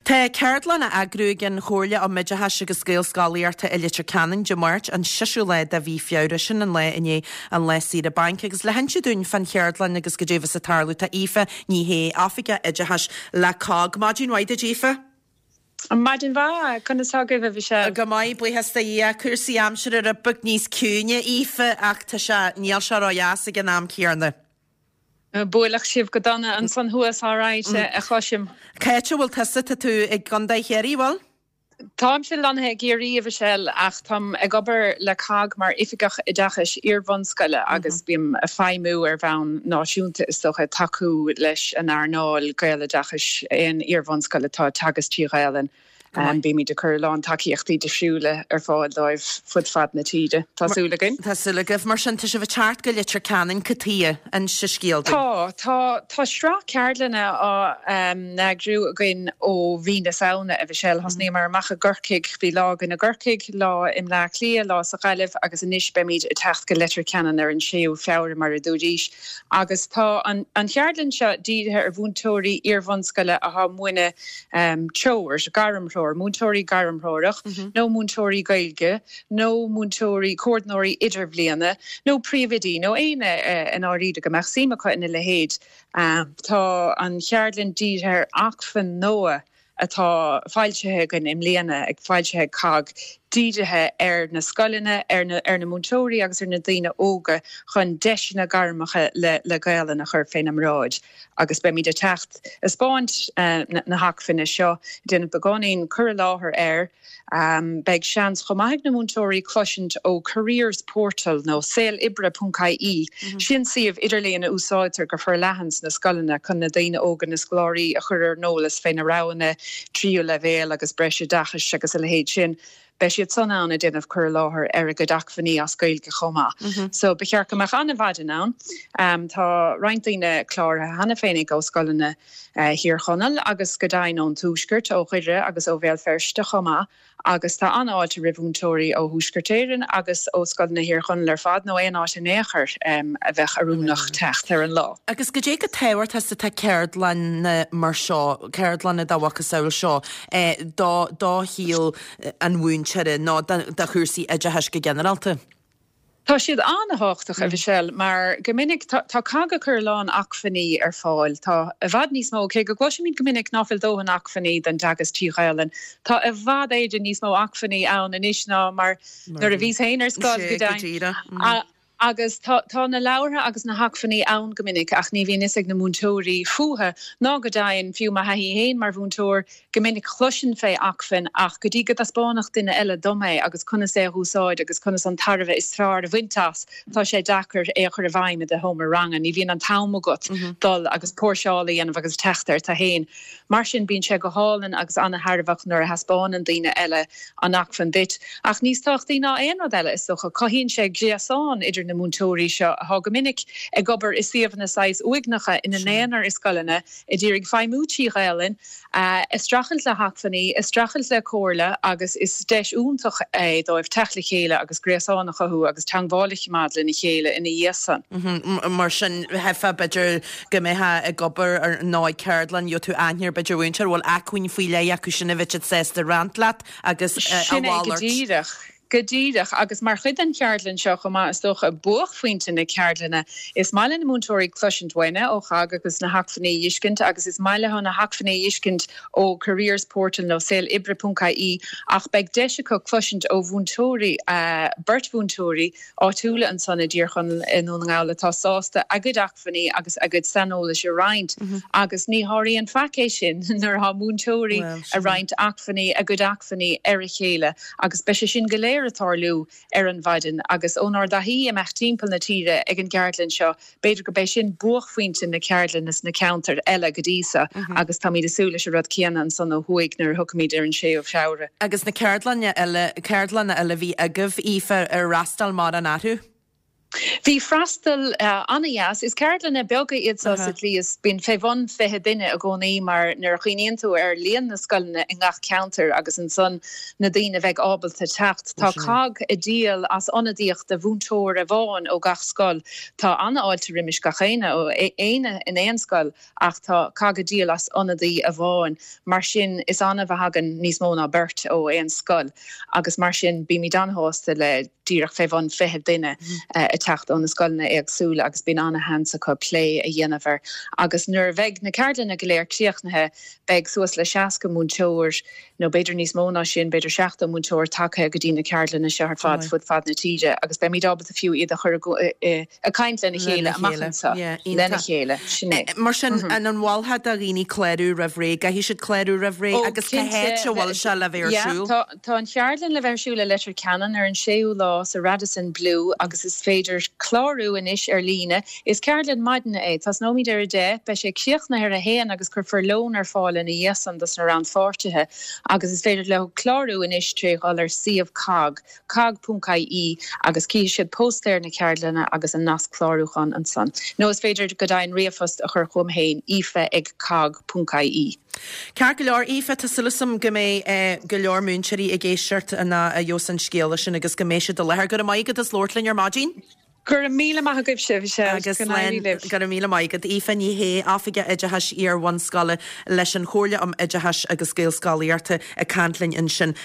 Tá ceardlann á eagrú ag an Chomhairle um Oideachais agus Gaelscolaíochta i Leitir Ceanainn Dé Máirt, an seisiú lá de mhí Feabhra, sin an lá i ndiaidh an lá saoire bainc. Agus le hinse dúinn fán cheardlann agus goidé a bheas ag tarlú tá Aoife Ní Shé, Oifigeach Oideachais le COGG. Maidin mhaith duit Aoife. Maidin mhaith, conas tá agaibh a Mhichelle? Go maith, buíochas do Dhia. Cúrsaí aimsire rud beag níos ciúine, Aoife, ach tá sé, níl sé ró-dheas ag an am céanna. Buaileadh sibh go dona ansan thuas, alright, a chloisim. Cá háit a bhfuil tusa? Tá tú i gContae Chiarraí, bhfuil? Táimse lonnaithe i gCiarraí, a Mhichelle, ach táim ag obair le cogg mar Oifigeach Oideachais Iar-bhunscoile agus bím ag feidhmiú ar bhonn náisiúnta, is dócha, ag tacú leis an earnáil Gaeloideachais aon iar-bhunscoil atá ag teagasc trí Ghaelainn. Bímid ag cur a lán tacaíochtaí difriúla ar fáil dóibh fud fad na tíre, tá súil againn. Tá súil agaibh. Mar sin, tá sibh ag teacht go Leitir Ceanainn, cad chuige? Inis an scéal dúinn. Tá. Tá. Tá sraith ceardlanna á n-eagrú againn ó mhí na Samhna, a Mhichelle. Thosnaíomar amach i gCorcaigh, bhí lá againn i gCorcaigh, lá i mBleá Cliath, lá sa Ghaillimh agus anois beimid ag teacht go Leitir Ceanainn ar an 6ú Feabhra mar a dúraís. Agus tá an cheardlann seo dírithe ar mhúinteoirí iar-bhunscoile atá ag múineadh treoir, gairmthreoir, múinteoirí gairmthreorach nó múinteoirí Gaeilge nó múinteoirí, comhordnóirí idirbhliana nó príomhoidí nó éinne i ndáiríre go mbeadh suim acu ina leithéid. Tá an cheardlann dírithe ar acmhainn nua atá foilsithe againn i mbliana, ag foilsithe ag cogg, dírithe ar na scoileanna, ar na ar na múinteoirí agus ar na daoine óga chun deiseanna gairmeacha le le Gaelainn a chur féna mbráid. Agus beimid ag teacht ag 'spáint na hacmhainne seo, ag déanamh beagáinín cur i láthair air. Beidh seans chomh maith ag na múinteoirí cloisint ó Careers Portal nó saoloibre.ie, sin suíomh idirlíon a úsáidtear go forleathan sna scoileanna chun na daoine óga, na scoláirí a chur ar an eolas fé na roghanna tríú leibhéal agus breisoideachais agus a leithéid sin. Beidh siad san ann ag déanamh cur i láthair ar a gcuid acmhainní as Gaeilge chomh maith. So ba cheart go mbeadh an-mhaidin ann. Tá roinnt daoine cláraithe cheana féinig ó scoileanna Thír Chonaill agus go deimhin ón Tuaisceart, ó Dhoire agus ó Bhéal Feirste chomh maith agus tá an-fháilte roimh mhúinteoirí ó Thuaisceart Éireann agus ó scoileanna Thír Chonaill ar fad nó aon áit in aon chor a bheadh oiriúnach teacht ar an lá. Agus goidé chomh tábhachtach is atá ceardlanna mar seo, ceardlanna dá mhacasamhail seo, do do shaol an mhúinteora nó do chúrsaí oideachais go ginearálta? Tá siad an-thábhachtach, a Mhichelle, mar go minic tá cogg ag cur a lán acmhainní ar fáil. Tá i bhfad níos mó, cé go gcloisimid go minic ná fuil dóthain acmhainní don dteagasc trí Ghaelainn, tá i bhfad Éireann níos mó acmhainní ann anois ná mar nuair a bhíos féin ar scoil, go deimhin. Agus tá tá na leabhartha agus na hacmhainní ann go minic ach ní bhíonn fhios ag na múinteoirí fúthu, ná go deimhin, fiú mo thaithí féin mar mhúinteoir, Go minic chloisinn fé acmhainn ach go dtí go dtaispeánfadh duine eile dom é agus conas é a dh'úsáid agus conas an tairbhe is fearr a bhaint as, tá sé deacair é a chur i bhfeidhm i do sheomra ranga. Ní bhíonn an t-am agat dul agus póirseáil a dhéanamh agus teacht air tú féin. Mar sin bíonn sé go hálainn agus ana-thairbheach nuair a thaispeánann daoine eile an acmhainn duit. Ach níos tábhachtaí ná aon rud eile, is dócha, cothaíonn sé gréasán idir na múinteoirí seo atá go minic ag obair i suíomhanna saghas uaigneacha ina n-aonar i scoileanna, ag iarraidh feidhmiú trí Ghaelainn, ag streachailt le hacmhainní, ag streachailt le comhairle agus is deis iontach é dóibh teacht le chéile agus gréasán a chothú agus teangmháil a choimeád lena chéile ina dhiaidh san. Mar sin, theifeá b'fhéidir go mbeifeá ag obair ar nó ag ceardlann, gheobhaidh tú aithne ar b'fhéidir mhúinteoir a bhfuil acmhainn faoi leith acu sin a bheadh siad sásta roinnt leat agus a Sin é go mhalairt. díreach. Go díreach, agus mar chuid den cheardlann seo chomh maith, is dócha, buaicphointe na ceardlainne, is maith le na múinteoirí cloisint uainne ó CHOGG agus na hacmhainní a dh'fheiscint agus is maith leo na hacmhainní a dh'fheiscint ó Careers Portal nó saoloibre.ie ach beidh deis acu cloisint ó mhúinteoirí, beirt mhúinteoirí áitiúla ansan i dTír Chonaill i nDún na nGall atá sásta a gcuid acmhainní agus a gcuid saineolais a roinnt agus ní sháraíonn faic é sin nuair atá múinteoirí ag roinnt acmhainní, a gcuid acmhainní ar a chéile agus beidh sé sin go léir ag tarlú ar an mhaidin agus ónár dtaithí imeacht timpeall na tíre ag an gceardlann seo b'fhéidir go b'é sin buaicphointe na ceardlainne sna ceantair eile go dtí so agus táimid ag súil leis an rud céanna ansan ó thuaidh nuair a thiocfaimid ar an 6ú Feabhra. Agus na ceardlanna eile, ceardlanna eile a bhí agaibh, Aoife, ar fhreastail mórán orthu? Bhí freastal an-dheas. Is ceardlanna beaga iad seo sa tslí is bíonn fé bhun 20 duine i gcónaí mar nuair a chuimhníonn tú ar líon na scoileanna i ngach ceantar agus ansan na daoine a bheidh ábalta teacht. Tá cogg ag díol as ionadaíocht de mhúinteoir amháin ó gach scoil. Tá an-fháilte roimis gach éinne ó éinne in aon scoil ach tá cogg ag díol as ionadaí amháin. Mar sin is annamh a thagann níos mó ná beirt ó aon scoil agus mar sin bímid an-shásta le díreach fé bhun 20 duine ag teacht ó na scoileanna éagsúla agus bíonn ana-sheans acu plé a dhéanamh air. Agus nuair a bheidh na ceardlanna go léir críochnaithe, beidh suas le 60 múinteoir, nó b'fhéidir níos mó ná sin, b'fhéidir 70 múinteoir tagtha go dtí na ceardlanna seo ar fad fud fad na tíre agus beimid ábalta fiú iad a chur ag caint lena chéile amach anseo lena chéile. Sin é. Mar sin, an mholfá do dhaoine clárú roimh ré? Caithfidh siad clárú roimh ré agus cá háit a bhfuil sé le bheith ar siúl? Tá an cheardlann le bheith ar siúl i Leitir Ceanainn ar an 6ú lá sa Radisson Blu agus is féidir clárú anois ar líne. Is ceardlann maidine é. Tosnóimid ar 10, beidh sé críochnaithe ar 1 agus cuirfear lón ar fáil ina dhiaidh san dos na rannpháirtithe agus is féidir leo clárú anois tré dhul ar suíomh cogg, cogg.ie agus cífidh siad póstaer na ceardlainne agus an nasc clárúcháin ansan. Nó is féidir go deimhin ríomhphost a chur chugam féin, aoife ag cogg.ie. Ceart go leor, Aoife, tá súil agam go mbeidh go leor múinteoirí ag éisteacht nuair a gheobhas an scéala sin agus go mbeidh siad i láthair. Go raibh maith agat as labhairt linn ar maidin. Go raibh míle maith agaibhse, Michelle. Agus Go n-éirí libh. Go raibh míle maith agat. Aoife Ní Shé, Oifigeach Oideachais Iar-bhunscoile leis an Chomhairle um Oideachais agus Gaelscolaíochta ag caint linn ansin.